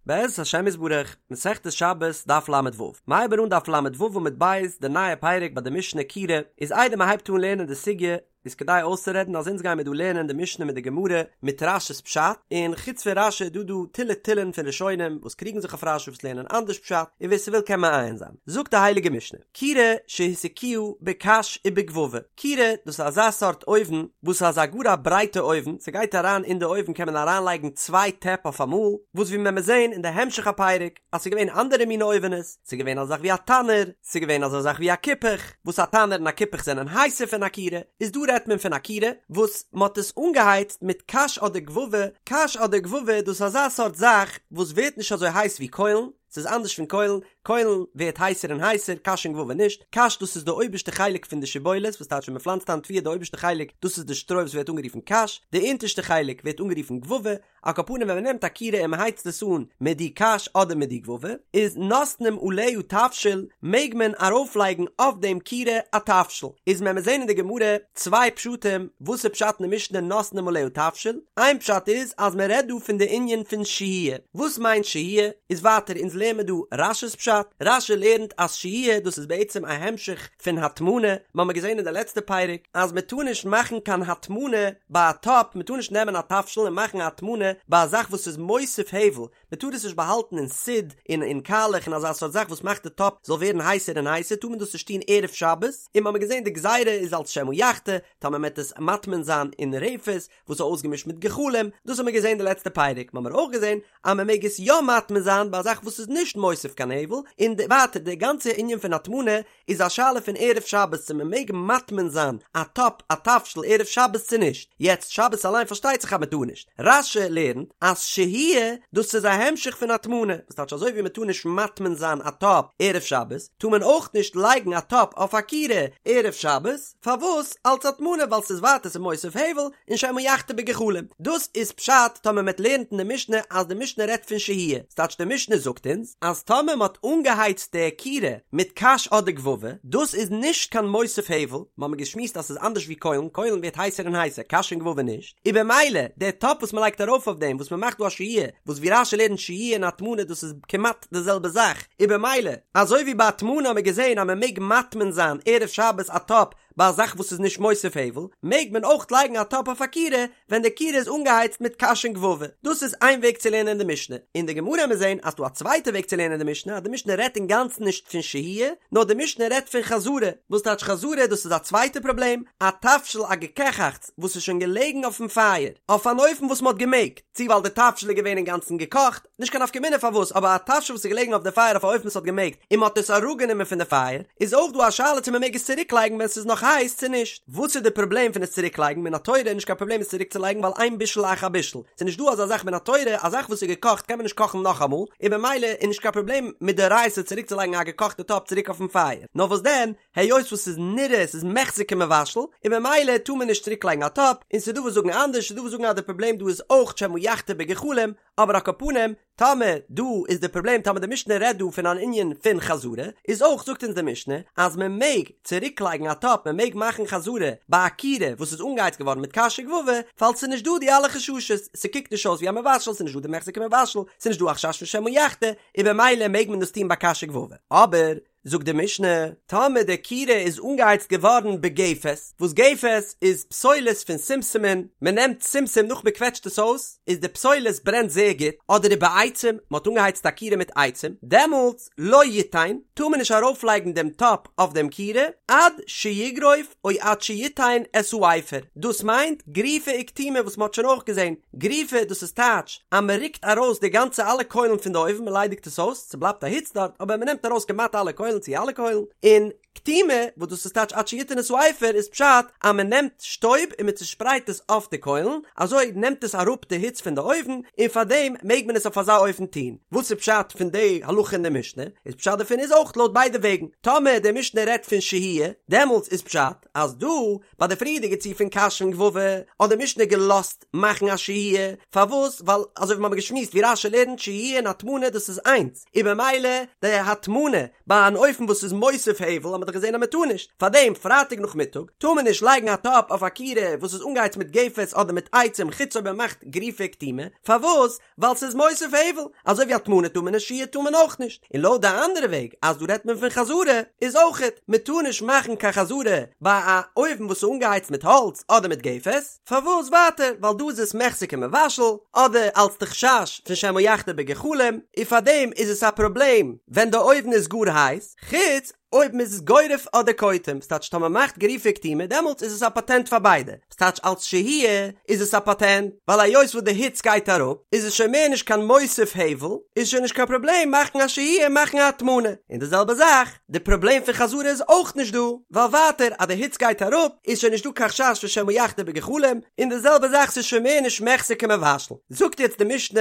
בעזרת השם יתברך, מסכת שבת, דף ל"ו. מ'הייבן אן דף ל"ו עמוד ב', די נייע פרק ביי די משנה כירה, איז איידער מ'הייבט אן לערנען די סוגיא, איז כדאי אויסצורעדן אז אונז גיימיר דא לערנען די משנה מיט די גמרא מיט רש"י'ס פשט, און חוץ פון רש"י איז דא דא תילי תילין פון ראשונים וואס קריגן זיך אויף רש"י וואס לערנען אנדערש פשט, און ווער ס'וויל קען מעיין זיין. זאגט די הייליגע משנה, כירה שהסיקוה בקש ובגבבא, כירה דאס איז אזא סארט אויוון וואס איז א גאר א ברייטע אויוון, ס'גייט אריין אין די אויוון קען מען אריין לייגן צוויי טעפ אויף אמאל, וואס ווי מען וועט זען אין די המשך הפרק אז ס'איז געווען אנדערע מינע אויווענעס, ס'איז געווען אזא זאך ווי א תנור, ס'איז געווען אזא זאך ווי א כיפוך, וואס א תנור און א כיפוך זענען הייסער פון א כירה, איז דא רעדט מען פון א כירה וואס מ'האט עס אנגעהייצט מיט קש אדער גבבא, קש אדער גבבא דאס איז אזא סארט זאך וואס ווערט נישט אזוי הייס ווי קוילן, ס'איז אנדערש פון קוילן, קוילן ווערט הייסער און הייסער, קש און גבבא נישט, קש דאס איז די אויבערשטע חלק פון די שיבולת, וואס טייטש ווען מ'פלאנצט איין תבואה די אויבערשטע חלק דאס איז די שטרוי וואס ווערט אנגערופן קש, די אונטערשטע חלק ווערט אנגערופן גבבא, על כל פנים ווען מ'נעמט א כירה און מ'הייצט עס אן מיט די קש אדער מיט די גבבא, איז נותנים עליה תבשיל, מעג מען ארויפלייגן אויף דעם כירה א תבשיל, איז וועלן מיר זעהן אין די גמרא צוויי פשטים וואס איז פשט אין די משנה נותנים עליה תבשיל, איין פשט איז אז מען רעדט דא פון די ענין פון שהייה, וואס מיינט שהייה? איז ווייטער אונז לערן מיר דא רש"י'ס פשט, רש"י לערנט אז שהייה דאס איז בעצם א המשך פון הטמנה, מ'האמיר געזען אין די לעצטע פרק אז מען טאר נישט מאכן קיין הטמנה ביי א טאפ, מען טאר נישט נעמען א תבשיל און מאכן א הטמנה ביי א זאך וואס איז מוסיף הבל, מען טאר עס נישט באהאלטן אין סיד און אין קאלעך און אזא סארט זאך וואס מאכט די טאפ זאל ווערן הייסער און הייסער טאר מען דאס נישט טון ערב שבת, און מ'האמיר געזען די גזירה איז אלס שמא יחתה, טאמער מ'עט עס מטמין זיין אין רפת וואס איז אויסגעמישט מיט גחלים, דאס האמיר געזען די לעצטע פרק, מ'האמיר אויך געזען אז מ'מעג עס יא מטמין זיין ביי א זאך וואס איז נישט מוסיף קיין הבל, און ווייטער די גאנצע ענין פון הטמנה איז א שאלה פון ערב שבת צו מען מעג מטמין זיין א טאפ א תבשיל ערב שבת צו נישט, יעצט שבת אליין פארשטייט זיך אז מען טאר נישט, רש"י לערנט אז שהייה דאס איז א המשך פון הטמנה, וואס טייטש אזוי ווי מען טאר נישט מטמין זיין א טאפ ערב שבת, טאר מען אויך נישט לייגן א טאפ אויף א כירה ערב שבת, פארוואס? אלץ הטמנה ווייל ס'איז ווייטער ס'איז מוסיף הבל און שמא יחתה בגחלים, דאס איז פשט טאמער מען לערנט אין די משנה אז די משנה רעדט פון שהייה, ס'טייטש די משנה זאגט אונז אז טאמער מ'האט אנגעהייצט די כירה מיט קש אדער גבבא, דאס איז נישט קיין מוסיף הבל, מ'האמיר געשמועסט אז ס'איז אנדערש ווי קוילן, קוילן ווערט הייסער און הייסער, קש און גבבא נישט, און במילא די טאפ וואס מ'לייגט ארויף אויף דעם וואס מ'מאכט דא א שהייה, וואס ווי רש"י לערנט שהייה און הטמנה דאס איז כמעט די זעלבע זאך, און במילא אזוי ווי ביי הטמנה האמיר געזען אז מ'מעג מטמין זיין ערב שבת א טאפ ביי א זאך וואס איז נישט מוסיף הבל, מעג מען אויך לייגן א טאפ אויף א כירה ווען די כירה איז אנגעהייצט מיט קש און גבבא. דאס איז איין וועג צו לערנען די משנה. אין די גמרא וועמיר זען אז ס'דא א צווייטע וועג צו לערנען די משנה, אז די משנה רעדט אינגאנצן נישט פון שהייה, נאר די משנה רעדט פון חזרה. וואס טייטש חזרה? דאס איז א צווייטע פראבלעם, א תבשיל א געקעכאכטס וואס איז שוין געלעגן אויפן פייער, אויף אן אופן וואס מ'האט געמעגט, צו ווייל די תבשיל איז געווען אינגאנצן געקאכט, נישט קיין נפקא מינה פארוואס, אבער א תבשיל וואס איז געלעגן אויף די פייער אויף א אופן וואס האט געמעגט, און מען האט עס אראפגענומען פון די פייער, איז אויך דא א שאלה צו מען מעג עס צוריקלייגן ווען ס'איז נאך הייס צו נישט. וואס איז די פראבלעם פון עס צוריקלייגן? מן התורה איז נישט קיין פראבלעם עס צוריקצולייגן ווייל אין בישול אחר בישול. ס'איז נישט דא אזא זאך מן התורה, א זאך וואס איז געקאכט קען מען נישט קאכן נאכאמאל, און במילא איז נישט קיין פראבלעם מדאורייתא צוריקצולייגן א געקאכטע טאפ צוריק אויפן פייער. נאר וואס דען, היות וואס ס'איז נראה ס'איז מחזי כמבשל, און במילא טאר מען נישט צוריקלייגן א טאפ, און ס'איז דא וואס זאגן אנדערש, ס'איז דא וואס זאגן אז די פראבלעם דא איז אויך שמא יחתה בגחלים, אבער על כל פנים, טאמער דא איז די פראבלעם טאמער די משנה רעדט דא פון אן ענין פון חזרה, איז אויך זאגט אונז די משנה אז מען מעג צוריק לייגן א טאפ מען מעג מאכן חזרה ביי א כירה וואס איז אנגעהייצט געווארן מיט קש וגבבא, ווייל ס'איז נישט דא די אלע חששות, ס'קוקט נישט אויס ווי א מבשל, ס'איז נישט דא די מחזי כמבשל, ס'איז נישט דא א חשש פון שמא יחתה, און במילא מעג מען דאס טון ביי קש וגבבא. אבער. זאגט די משנה, טאמער די כירה איז אנגעהייצט געווארן בגפת, וואס גפת איז פסולת פון שומשמין, מען נעמט שומשום נאך מען קוועטשט עס אויס, איז די פסולת ברענט זייער גוט, אדער ובעצים, מען האט אנגעהייצט א כירה מיט עצים, דעמאלטס לא יתן, טאר מען נישט ארויפלייגן דעם טאפ אויף דעם כירה, עד שיגרוף או עד שיתן את האפר, דאס מיינט גריפה וקטימה וואס מען האט שוין אויך געזען, גריפה דאס איז טייטש אז מען רוקט ארויס די גאנצע אלע קוילן פון די אויוון מען ליידיגט עס אויס, ס'בלייבט א היץ דארט אבער מען נעמט ארויס כמעט אלע קוילן צו אלע קוילן, און קטימה וואס דאס איז טייטש עד שיתן את האפר איז פשט אז מען נעמט שטויב און מען צושפרייט עס אויף די קוילן, אזוי נעמט עס אראפ די היץ פון די אויוון, און פארדעם מעג מען עס אויף אזא אופן טון. וואס איז פשט פון די הלכה אין די משנה? איז פשט דערפון איז אויך לויט ביידע וועגן, טאמער די משנה רעדט פון שהייה דעמאלטס איז פשט אז דא ביי די פריערדיגע ציור פון קש און גבבא האט די משנה געלאזט מאכן א שהייה, פארוואס? ווייל אזוי ווי מ'האמיר געשמועסט ווי רש"י לערנט שהייה און הטמנה דאס איז איינס, און במילא די הטמנה ביי אן אויוון. אופן וואס איז מוסיף הבל האט מען דאך געזען אז מען טאר נישט, פארדעם פרייטאג נאכמיטאג טאר מען נישט לייגן א טאפ אויף א כירה וואס איז אנגעהייצט מיט גפת אדער מיט עצים חוץ אויב מען מאכט גריפה וקטימה, פארוואס? ווייל ס'איז מוסיף הבל, אזוי ווי הטמנה טאר מען נישט שהייה טאר מען אויך נישט, און לויט די אנדערע וועג אז דא רעדט מען פון חזרה איז אויכעט, מען טאר נישט מאכן קיין חזרה ביי א אויוון וואס איז אנגעהייצט מיט האלץ אדער מיט גפת, פארוואס ווייטער ווייל דא איז עס מחזי כמבשל, אדער אלס די חשש פון שמא יחתה בגחלים, און פארדעם איז עס א פראבלעם ווען די אויוון איז גאר הייס, חוץ אויב מ'איז גורף אדער קוטם, ס'טייטש טאמער מ'מאכט גריפה וקטימה דעמאלטס איז עס א פאטענט פאר ביידע, ס'טייטש אלס שהייה איז עס א פאטענט, ווייל היות וואס די היץ גייט אראפ איז עס שוין מער נישט קיין מוסיף הבל, איז שוין נישט קיין פראבלעם מאכן א שהייה און מאכן א הטמנה, און די זעלבע זאך די פראבלעם פון חזרה איז אויך נישט דא, ווייל ווייטער אז די היץ גייט אראפ איז שוין נישט דא קיין חשש פון שמא יחתה בגחלים, און די זעלבע זאך ס'איז שוין מער נישט מחזי כמבשל. זאגט יעצט די משנה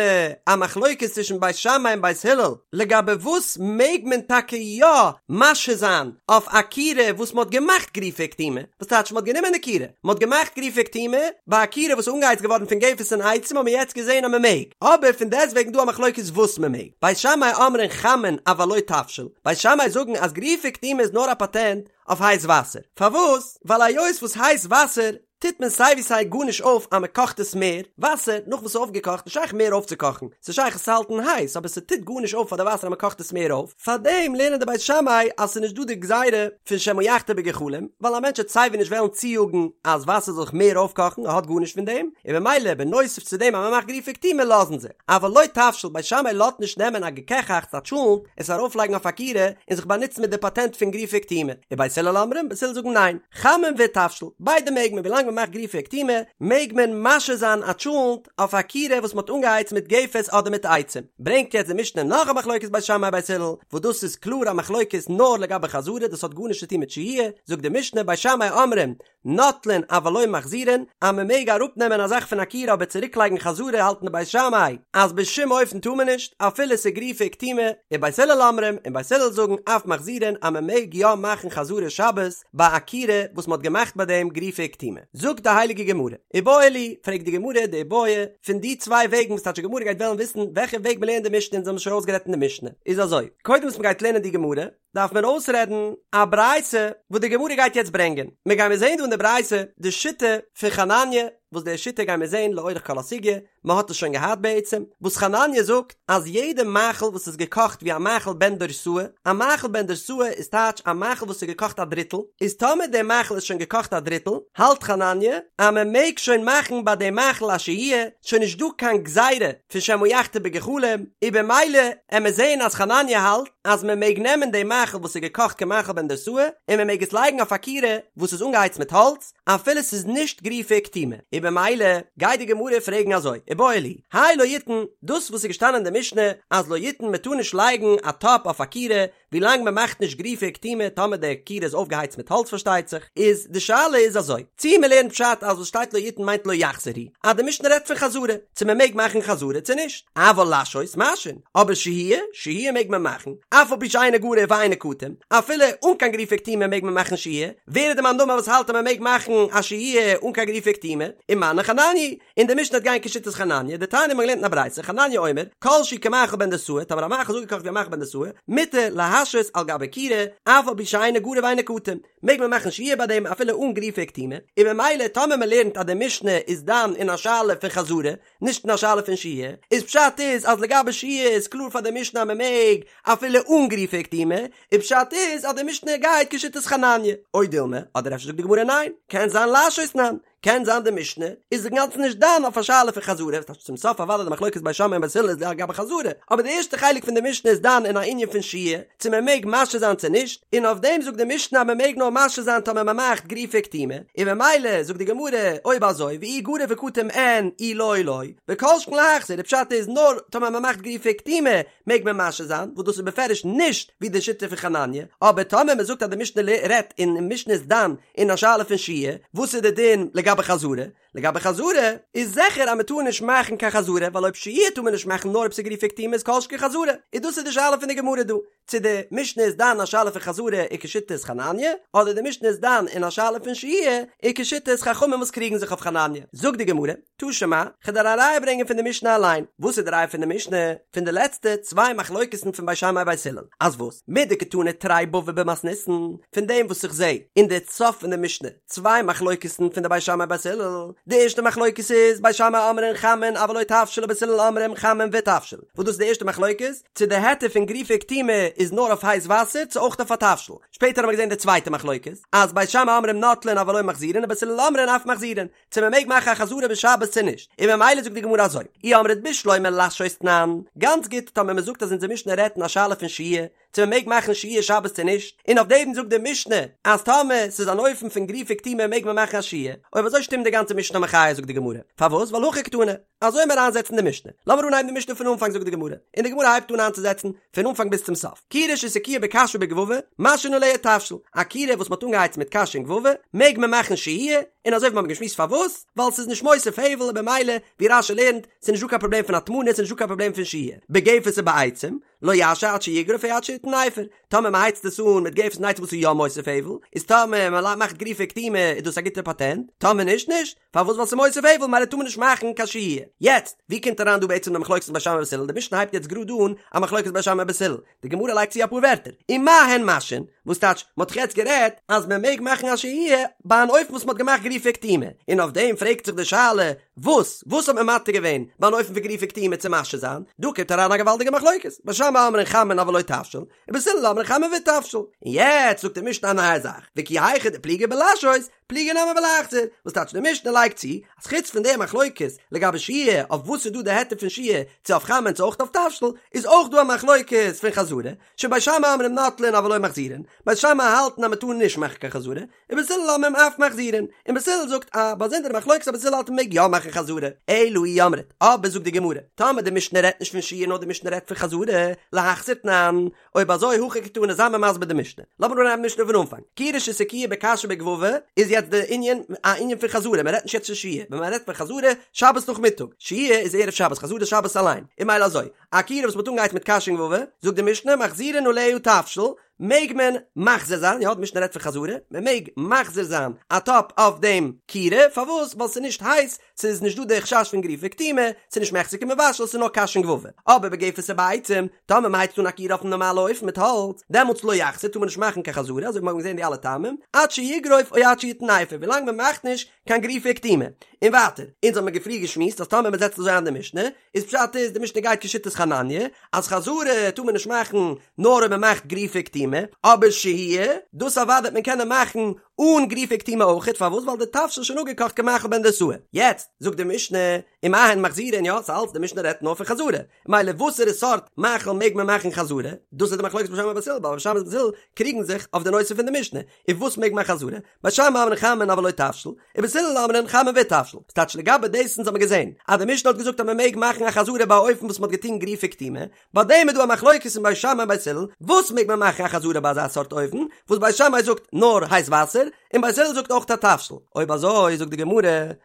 א מחלוקת צווישן בית שמאי און בית הלל לגבי וואס מעג מען טאקע יא משהה זיין אויף א כירה וואס מען האט געמאכט גריפה וקטימה, וואס טייטש מען האט גענומען די כירה, מען האט געמאכט גריפה וקטימה, ביי א כירה וואס איז אנגעהייצט געווארן פון גפת און עצים האט מען יעצט געזען אז מען מעג, אבער פון דעסטוועגן דא א מחלוקת וואס מען מעג, בית שמאי אומרים חמין אבל לא תבשיל, בית שמאי זאגן אז גריפה וקטימה איז נאר א פאטענט אויף הייס וואסער, פארוואס? ווייל היות וואס הייס וואסער טוט מען סיי ווי סיי גארנישט אויף אז מען קאכט עס מער, וואסער נאך וואס ס'איז אויפגעקאכט נישט שייך מער אויפצוקאכן, ס'איז שייך עס צו האלטן הייס אבער ס'טוט גארנישט אויף פאר די וואסער אז מען קאכט עס מער אויף, פארדעם לערנען די בית שמאי אז ס'איז נישט דא די גזירה פון שמא יחתה בגחלים, ווייל א מענטש וועט סיי ווי נישט וועלן צויאגן אז וואסער זאל זיך מער אויפקאכן, ער האט גארנישט פון דעם, און ממילא בנוסף צו דעם אז מען מאכט גריפה וקטימה לאזן זיי, אבל לא תבשיל, בית שמאי לאזט נישט נעמען א געקעכאכטס א טשולנט, עס ארויפלייגן אויף א כירה און זיך באנוצן מיט די פאטענט פון גריפה וקטימה, ובית הלל אומרים, בית הלל זאגן ניין. חמין ותבשיל, ביידע מעג מען ווילאנג מען מאכט גריפה וקטימה, מעג מען משהה זיין א טשולנט אויף א כירה וואס מען האט אנגעהייצט מיט גפת אדער מיט עצים. ברענגט יעצט די משנה נאך א מחלוקת בית שמאי בית הלל, וואס דאס איז קלאר א מחלוקת נאר לגבי חזרה, דאס האט גארנישט צו טון מיט שהייה, זאגט די משנה בית שמאי אומרים נוטלין אבל לא מחזירין, אז מען מעג אראפנעמען א זאך פון א כירה אבער צוריקלייגן חזרה האלטן די בית שמאי אז בשום אופן טאר מען נישט, אפילו ס'איז גריפה וקטימה, ובית הלל אומרים, און בית הלל זאגן אף מחזירין אז מען מעג יא מאכן חזרה שבת, ביי א כירה וואס מ'האט געמאכט ביי דעם גריפה וקטימה. זאגט די הייליגע גמרא, איבעיא להו, פרעגט די גמרא די איבעיא פון די צוויי וועגן וואס טייטש די גמרא גייט וועלן וויסן וועלכע וועג מ'לערנט די משנה אונז האבן שוין אויסגערעדט אין די משנה איז אזוי, קודם וואס מ'גייט לערנען די גמרא דארף מען אויסרעדן א ברייתא וואס די גמרא גייט יעצט ברענגען, מיר גיימיר זען דא אין די ברייתא די שיטה פון חנניה, וואס די שיטה גיימיר זען לאורך כל הסוגיא, מען האט עס שוין געהאט בעצם, וואס חנניה זאגט אז יעדע מאכל וואס איז געקאכט ווי א מאכל בן דורסאי, א מאכל בן דורסאי איז טייטש א מאכל וואס איז געקאכט א דריטל, איז טאמער דער מאכל איז שוין געקאכט א דריטל, האלט חנניה אז מען מעג שוין מאכן ביי דעם מאכל א שהייה, שוין נישט דא קיין גזירה פון שמא יחתה בגחלים, און במילא עמיר זעהן אז חנניה האלט אז מען מעג נעמען דעם מאכל וואס איז געקאכט כמאכל בן דורסאי און מען מעג עס לייגן אויף א כירה וואס איז אנגעהייצט מיט האלץ, אפילו ס'איז נישט גריפה וקטימה, און במילא גייט די גמרא פרעגן אזוי, איבעיא להו, האי לא יתן, דאס וואס איז געשטאנען אין די משנה אז לא יתן מען טאר נישט לייגן א טאפ אויף א כירה ווילאנג מען מאכט נישט גריפה וקטימה טאמער די כירה איז אויפגעהייצט מיט האלץ פארשטייט זיך, איז די שאלה איז אזוי, צי מען לערנט פשט אז וואס שטייט לא יתן מיינט לא יחזיר הוא, אז די משנה רעדט פון חזרה, צו מען מעג מאכן חזרה צו נישט, אבל להשהות משהין, אבער שהייה, שהייה מעג מען מאכן, אף על פי שאינו גרוף ואינו קטום, אפילו אן קיין גריפה וקטימה מעג מען מאכן שהייה, ווער איז די מאן דאמר וואס האלט אז מען מעג מאכן א שהייה אן קיין גריפה וקטימה, ומני חנניה, און די משנה וועט גיין כשיטת חנניה, דתניא מ'האט געלערנט אין א ברייתא, חנניה אומר, כל שהוא כמאכל בן דורסאי, טאמער א מאכל איז אפגעקאכט ווי א מאכל בן דורסאי, מותר להשהות על גבי כירה, אף על פי שאינו גרוף ואינו קטום, מעג מען מאכן שהייה ביי דעם אפילו אן גריפה וקטימה, און ממילא טאמער מען לערנט אז די משנה איז דן אין א שאלה פון חזרה, נישט אין א שאלה פון שהייה, איז פשט איז אז לגבי שהייה איז קלאר פאר די משנה אז מען מעג אפילו אן גריפה וקטימה, און פשט איז אז די משנה גייט כשיטת חנניה, או דילמא, אדער אפשר זאגט די גמרא ניין, קען זיין להשהות תנן, קען זיין די משנה איז אינגאנצן נישט דן אויף א שאלה פון חזרה, וואס טייטש צום סוף אוודאי די מחלוקת בית שמאי און בית הלל איז לגבי חזרה, אבער די ערשטע חלק פון די משנה איז דן אין א ענין פון שהייה, צו מען מעג משהה זיין צו נישט, און אויף דעם זאגט די משנה אז מען מעג נאר משהה זיין טאמער מען מאכט גריפה וקטימה, און ממילא זאגט די גמרא אויב אזוי ואי גרוף וקטום אין אי לא לא, וכל שכן להחזיר, די פשט איז נאר טאמער מען מאכט גריפה וקטימה מעג מען משהה זיין, וואס דאס איז בפירוש נישט ווי די שיטה פון חנניה, אבער טאמער מען זאגט אז די משנה רעדט און די משנה איז דן אין א שאלה פון שהייה, וואס איז די דין לגבי חזרה? לגבי חזרה, איז זיכער אז מ'טאר נישט מאכן קיין חזרה, ווייל אויב שהייה טאר מען נישט מאכן נאר אויב ס'איז גרופה וקטומה איז כל שכן חזרה, איז דאס איז די שאלה פון די גמרא דא, צו די משנה איז דן א שאלה פון חזרה איז כשיטת חנניה, אדער די משנה איז דן אין א שאלה פון שהייה איז כשיטת חכמים וואס קריגן זיך אויף חנניה. זאגט די גמרא, תא שמע, כ'וועל דיר א ראיה ברענגען פון די משנה אליין. וואס איז די ראיה פון די משנה? פון די לעצטע צוויי מחלוקת'ן פון בית שמאי בית הלל. אז וואס? מדקתני תרי בבי במתניתין, פון דעם וואס איך זע אין די סוף פון די משנה צוויי מחלוקת'ן פון די בית שמאי בית הלל. די ערשטע מחלוקת איז, בית שמאי אומרים חמין אבל לא תבשיל ובית הלל אומרים חמין ותבשיל. וואס דאס איז די ערשטע מחלוקת, צו די היתר פון גרופה וקטומה איז נאר אויף הייס וואסער צו אויך אויף א תבשיל. שפעטער האבן מיר געזען די צווייטע מחלוקת, אז בית שמאי אומרים נוטלין אבל לא מחזירין ובית הלל אומרים אף מחזירין. צו מען מעג מאכן א חזרה בשבת צו נישט, און ממילא זאגט די גמרא אזוי, אי אמרת בשלמא להשהות תנן, גאנץ גוט טאמער מען זאגט אז אונזער משנה רעדט אין א שאלה פון שהייה, צו מען מעג מאכן שהייה שבת צו נישט, און אויף דעם זאגט די משנה אז טאמער ס'איז אן אופן פון גרופה וקטומה מעג מען מאכן א שהייה, אויב אזוי שטימט די גאנצע משנה מחיה זאגט די גמרא, פארוואס ווייל הכי קתני, אזוי מיר איינזעצן די משנה, לאמיר אנהייבן די משנה פון אנפאנג זאגט די גמרא, און די גמרא הייבט אן איינצוזעצן פון אנפאנג ביז צום סוף, כירה שהסיקוה בקש ובגבבא, משהין עליה תבשיל, א כירה וואס מ'האט אנגעהייצט מיט קש און גבבא, מעג מען מאכן שהייה, און אזוי ווי מ'האט געשמועסט פארוואס, ווייל ס'איז נישט מוסיף הבל און במילא, ווי רש"י לערנט, ס'איז נישט דא קיין פראבלעם פון הטמנה, ס'איז נישט דא קיין פראבלעם פון שהייה, בגפת ובעצים, לא ישהה עד שיגרוף או עד שיתן אפר, טאמער מ'הייצט עס אן מיט גפת און עצים וואס איז יא מוסיף הבל, איז טאמער מ'מאכט גרופה וקטומה איז דאס א גוטע פאטענט, טאמער נישט נישט. פארוואס ווייל ס'איז מוסיף הבל ממילא טאר מען נישט מאכן קיין שהייה. יעצט, ווי קומט אריין דא בעצם די מחלוקת בית שמאי ובית הלל? די משנה הייבט יעצט גראד אן א מחלוקת בית שמאי ובית הלל. די גמרא לייגט צו אפאר ווערטער. ומה הן משהין? וואס טייטש, מ'האט דאך יעצט גערעדט אז מען מעג מאכן א שהייה ביי אן אופן וואס מ'האט געמאכט גרופה וקטומה. און אויף דעם פרעגט זיך די שאלה, וואס? וואס האט מען מתיר געווען ביי אן אופן פון גרופה וקטומה צו משהה זיין? דא קומט אריין א געוואלדיגע מחלוקת. בית שמאי אומרים חמין אבל לא תבשיל, ובית הלל אומרים חמין ותבשיל. און יעצט זאגט די משנה א נייע זאך, וכי היכי דפליגי בלשהות, פליגי נמי בלהחזיר, וואס טייטש די משנה לייגט צו, אז חוץ פון די מחלוקת לגבי שהייה אויף וואס איז דא די היתר פון שהייה צו אויף חמין צו אויך אויף תבשיל, איז אויך דא א מחלוקת פון חזרה, שבית שמאי אומרים נוטלין אבל לא מחזירין, בית שמאי האלטן אז מען טאר נישט מאכן קיין חזרה, ובית הלל אומרים אף מחזירין, און בית הלל זאגט א באזונדערע מחלוקת אז בית הלל האלט מען מעג יא מאכן חזרה, אלא אי אמרת, אבער זאגט די גמרא, טאמער די משנה רעדט נישט פון שהייה נאר די משנה רעדט פון חזרה, להחזיר תנן, אויב אזוי הכי קתני זיי מיר מסביר די משנה. לאמיר אנהייבן משנה פון אנפאנג. כירה שהסיקוה בקש ובגבבא איז יעצט די ענין א ענין פון חזרה, מען רעדט נישט יעצט פון שהייה, ווען מען רעדט פון חזרה, שבת נאכמיטאג, שהייה איז ערב שבת, חזרה איז שבת אליין, און ממילא אזוי, א כירה וואס מען האט אנגעהייצט מיט קש און גבבא, זאגט די משנה מחזירין עליה תבשיל, מעג מען מחזיר זיין, יא די משנה רעדט פון חזרה, מען מעג מחזיר זיין א טאפ אויף דעם כירה, פארוואס? ווייל ס'איז נישט הייס, ס'איז נישט דא די חשש פון גרופה וקטומה, ס'איז נישט מחזר כמבשל, ס'איז נאר קש און גבבא. אבער בגפת ובעצים, טאמער מ'הייצט אן א כירה אויפן נארמאלע אופן מיט האלץ, דעמאלטס לא יחזיר טאר מען נישט מאכן קיין חזרה, אזוי ווי מ'האט געזען די אלע טעמים, עד שיגרוף או עד שיתן אפר, ווילאנג מ'מאכט נישט קיין גרופה וקטומה. און ווייטער, אונז האבן מיר פריער געשמועסט אז טאמער מ'זעצט אזוי איין די משנה, איז פשט איז די משנה גייט כשיטת חנניה, אז חזרה טאר מען נישט מאכן נאר אויב מ'מאכט גרופה וקטומה, אבער שהייה, דאס אוודאי וועט מען קענען מאכן אן גרופה וקטומה אויכעט, פארוואס? ווייל די תבשיל איז שוין אפגעקאכט כמאכל בן דרוסאי. יעצט זאגט די משנה, ומה הן מחזירין, יא, ס'אלץ די משנה רעדט נאר פון חזרה, מילא וואסערע סארט מאכל מעג מען מאכן חזרה? דאס איז די מחלוקת בית שמאי ובית הלל, ווייל בית שמאי ובית הלל קריגן זיך אויף די נושא פון די משנה, און וואס מעג מען חזרה? בית שמאי אומרים חמין אבל לא תבשיל, ובית הלל אומרים חמין ותבשיל. ס'טייטש לגבי דאס אונז האבן געזען אז די משנה האט געזאגט אז מען מעג מאכן א חזרה ביי א אופן וואס מען האט געטון גרופה וקטומה, ביי דעם איז דא א מחלוקת אין בית שמאי און בית הלל, וואס מעג מען מאכן א חזרה ביי אזא סארט אופן, וואס בית שמאי זאגט נאר הייס וואסער, און בית הלל זאגט אויך א תבשיל. אויב אזוי זאגט די גמרא,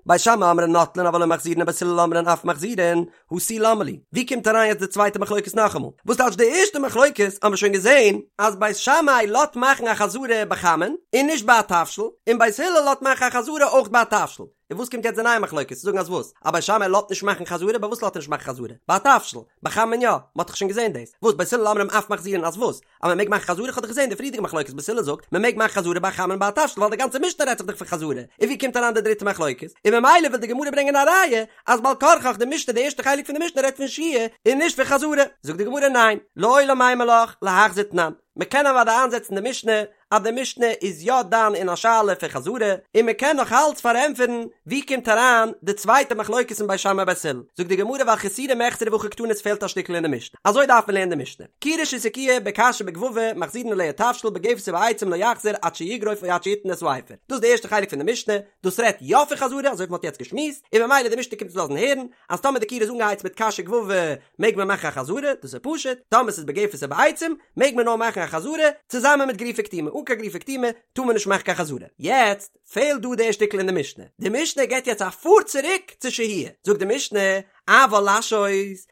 בית שמאי אומרים נוטלין אבל לא מחזירין ובית הלל אומרים אף מחזירין, הא תו למה לי. ווי קומט אריין יעצט די צווייטע מחלוקת נאכאמאל? וואס טייטש די ערשטע מחלוקת האבן מיר שוין געזען אז בית שמאי לאזט מאכן א חזרה בחמין און נישט ביי א תבשיל, און בית הלל לאזט מאכן א חזרה אויך ביי א תבשיל. און וואס קומט יעצט די נייע מחלוקת צו זאגן אז וואס? אז בית שמאי לאזט נישט מאכן חזרה? ביי וואס לאזט ער נישט מאכן חזרה? ביי א תבשיל? ביי חמין יא? מ'האט דאך שוין געזען דאס. וואס בית הלל אומרים אף מחזירין אז וואס? אז מ'מעג מאכן חזרה? כ'האב דאך געזען די פריערדיגע מחלוקת בית הלל זאגט מ'מעג מאכן חזרה ביי חמין ביי א תבשיל ווייל די גאנצע משנה רעדט זיך דאך פון חזרה. און ווי קומט אריין די דריטע מחלוקת? און ממילא וויל די גמרא ברענגען א ראיה אז בעל כרחך די משנה די ערשטע חלק פון די משנה רעדט פון שהייה און נישט פון חזרה. זאגט די גמרא ניין, לעולם אימא לך להחזיר תנן. מ'קען אוודאי איינזעצן די משנה אז די משנה איז יא דן אין א שאלה פון חזרה, און מען קען נאך אלץ פארענטפערן ווי קומט אריין די צווייטע מחלוקת אין בית שמאי בית הלל, זאגט די גמרא ווייל חסורי מחסרא והכי קתני עס פעלט א שטיקל אין די משנה, אזוי דארף מען לערנען די משנה, כירה שהסיקוה בקש ובגבבא מחזירין עליה תבשיל בגפת ובעצים לא יחזיר עד שיגרוף או עד שיתן את האפר, דאס איז די ערשטע חלק פון די משנה, דאס רעדט יא פון חזרה אזוי ווי מען האט יעצט געשמועסט, און ממילא די משנה קומט אונז לאזן הערן אז טאמער די כירה איז אנגעהייצט מיט קש וגבבא מעג מען מאכן א חזרה, דאס איז פשוט, טאמער ס'איז בגפת ובעצים מעג מען נאר מאכן א. א חזרה צוזאמען מיט גרופה קטומה, אן קיין גרופה קטומה טאר מען נישט מאכן קיין חזרה. יעצט פעלט דא די שטיקל אין די משנה, די משנה געבט יעצט א פאר צוריק צו שהייה, זאגט די משנה, אבל להשהות,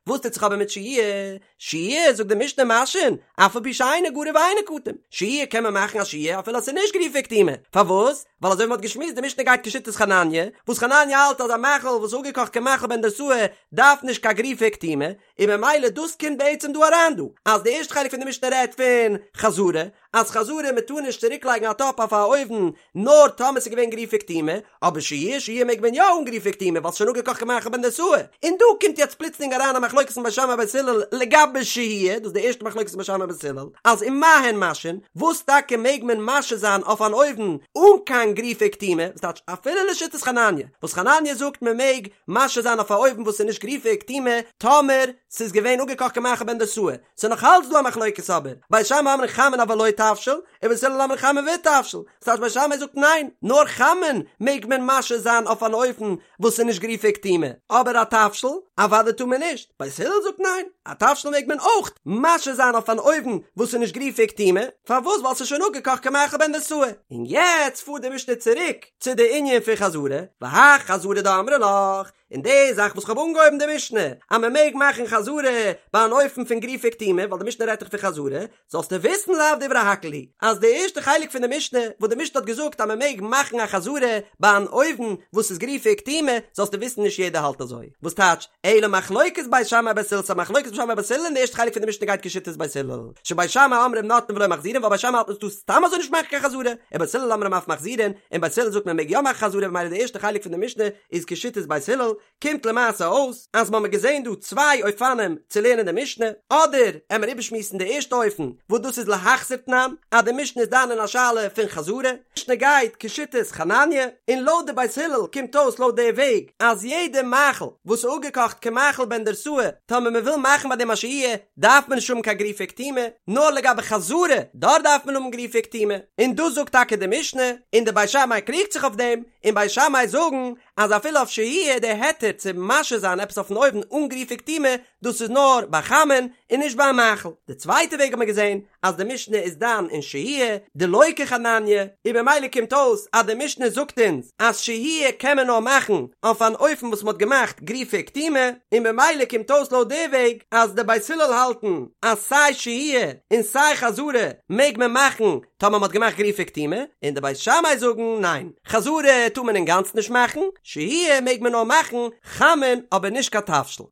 וואס טוט זיך אבער מיט שהייה? שהייה, זאגט די משנה משהין, אף על פי שאינו גרוף ואינו קטום, שהייה קען מען מאכן א שהייה אפילו אז ס'איז נישט גרופה וקטומה, פארוואס? ווייל אזוי ווי מ'האט געשמועסט די משנה גייט כשיטת חנניה, וואס חנניה האלט אז א מאכל וואס איז אפגעקאכט כמאכל בן דרוסאי דארף נישט קיין גרופה וקטומה, און ממילא דאס קומט בעצם דא אריין דא, אז די ערשטע חלק פון די משנה רעדט פון חזרה, אז חזרה מען טאר נישט צוריק לייגן א טאפ אויף א אויוון נאר טאמער ס'איז געווען גרופה וקטומה, אבער שהייה שהייה מעג מען יא אן גרופה וקטומה ווייל ס'איז שוין אפגעקאכט כמאכל בן דרוסאי, און דא קומט יעצט פלוצלינג אריין א מחלוקת פון בית שמאי בית הלל לגבי שהייה, דאס איז די ערשטע מחלוקת פון בית שמאי בית הלל, אז ומה הן משהין, וואס טאקע מעג מען משהה זיין אויף אן אויוון אן קיין גרופה וקטומה, וואס טייטש אפילו לשיטת חנניה, וואס חנניה זאגט מען מעג משהה זיין אויף א אויוון וואס איז נישט גרופה וקטומה טאמער ס'איז געווען אפגעקאכט כמאכל בן דרוסאי, ס'איז נאך אלץ דא א מחלוקת אבער, בית שמאי אומרים חמין אבל לא תבשיל, ובית הלל אומרים חמין ותבשיל, ס'טייטש בית שמאי זאגט ניין, נאר חמין מעג מען משהה זיין אויף אן אופן וואס איז נישט גרופה וקטומה, אבער א תבשיל, אוודאי טאר מען נישט, בית הלל זאגט ניין, א תבשיל מעג מען אויך משהה זיין אויף אן אויוון וואס איז נישט גרופה וקטומה, פארוואס ווייל ס'איז שוין אפגעקאכט כמאכל בן דרוסאי. און יעצט פארט די משנה צוריק צו די ענין פון חזרה, והאי חזרה דאמרי לך, און די זאך וואס כ'האב אנגעהויבן די משנה אז מען מעג מאכן חזרה ביי אן אופן פון גרופה וקטומה ווייל די משנה רעדט דאך פון חזרה, זאלסטו וויסן לאו דברי הכל היא אז די ערשטע חלק פון די משנה וואס די משנה האט געזאגט אז מען מעג מאכן א חזרה ביי אן אויוון וואס איז גרופה וקטומה זאלסטו וויסן נישט יעדער האלט אזוי, וואס טייטש אלא מחלוקת בית שמאי ובית הלל ס'איז א מחלוקת בית שמאי ובית הלל און די ערשטע חלק פון די משנה גייט כשיטת בית הלל שבית שמאי אומרים נוטלין ולא מחזירין ווייל בית שמאי האלט מען טאר סתם אזוי נישט מאכן קיין חזרה ובית הלל אומרים אף מחזירין און בית הלל זאגט מען מעג יא מאכן חזרה ממילא די ערשטע חלק פון די משנה איז כשיטת בית הלל, קומט למעשה אויס אז מ'האמיר געזען דא צוויי אופנים צו לערנען די משנה, אדער עמער איבערשמועסן די ערשטע אופן וואס דאס איז להחזיר תנן, אז די משנה איז דן אין א שאלה פון חזרה, משנה גייט כשיטת חנניה, און לויט די בית הלל קומט אויס לויט די וועג אז יעדע מאכל וואס איז אפגעקאכט כמאכל בן דרוסאי טאמער מ'וויל מאכן ביי דעם א שהייה דארף מען נישט האבן קיין גרופה וקטומה, נאר לגבי חזרה דארט דארף מען האבן גרופה וקטומה, און דאס זאגט טאקע די משנה, און די בית שמאי קריגט זיך אויף דעם, און בית שמאי זאגן אז אפילו אויף שהייה די היתר צו משהה זיין עפעס אויפן אויוון אן גרופה וקטומה דאס איז נאר ביי חמין און נישט ביי א מאכל. די צווייטע וועג האט מען געזען אז די משנה איז דן אין שהייה דלא כחנניה און במילא קומט אויס אז די משנה זאגט אונז אז שהייה קען מען נאר מאכן אויף אן אופן וואס מען האט געמאכט גרופה וקטומה און במילא קומט אויס לויט די וועג אז די בית הלל האלטן אז סיי שהייה און סיי חזרה מעג מען מאכן טאמער מ'האט געמאכט גרופה וקטומה, און די בית שמאי זאגן ניין, חזרה טאר מען אינגאנצן נישט מאכן, שהייה מעג מען נאר מאכן חמין אבער נישט קיין תבשיל.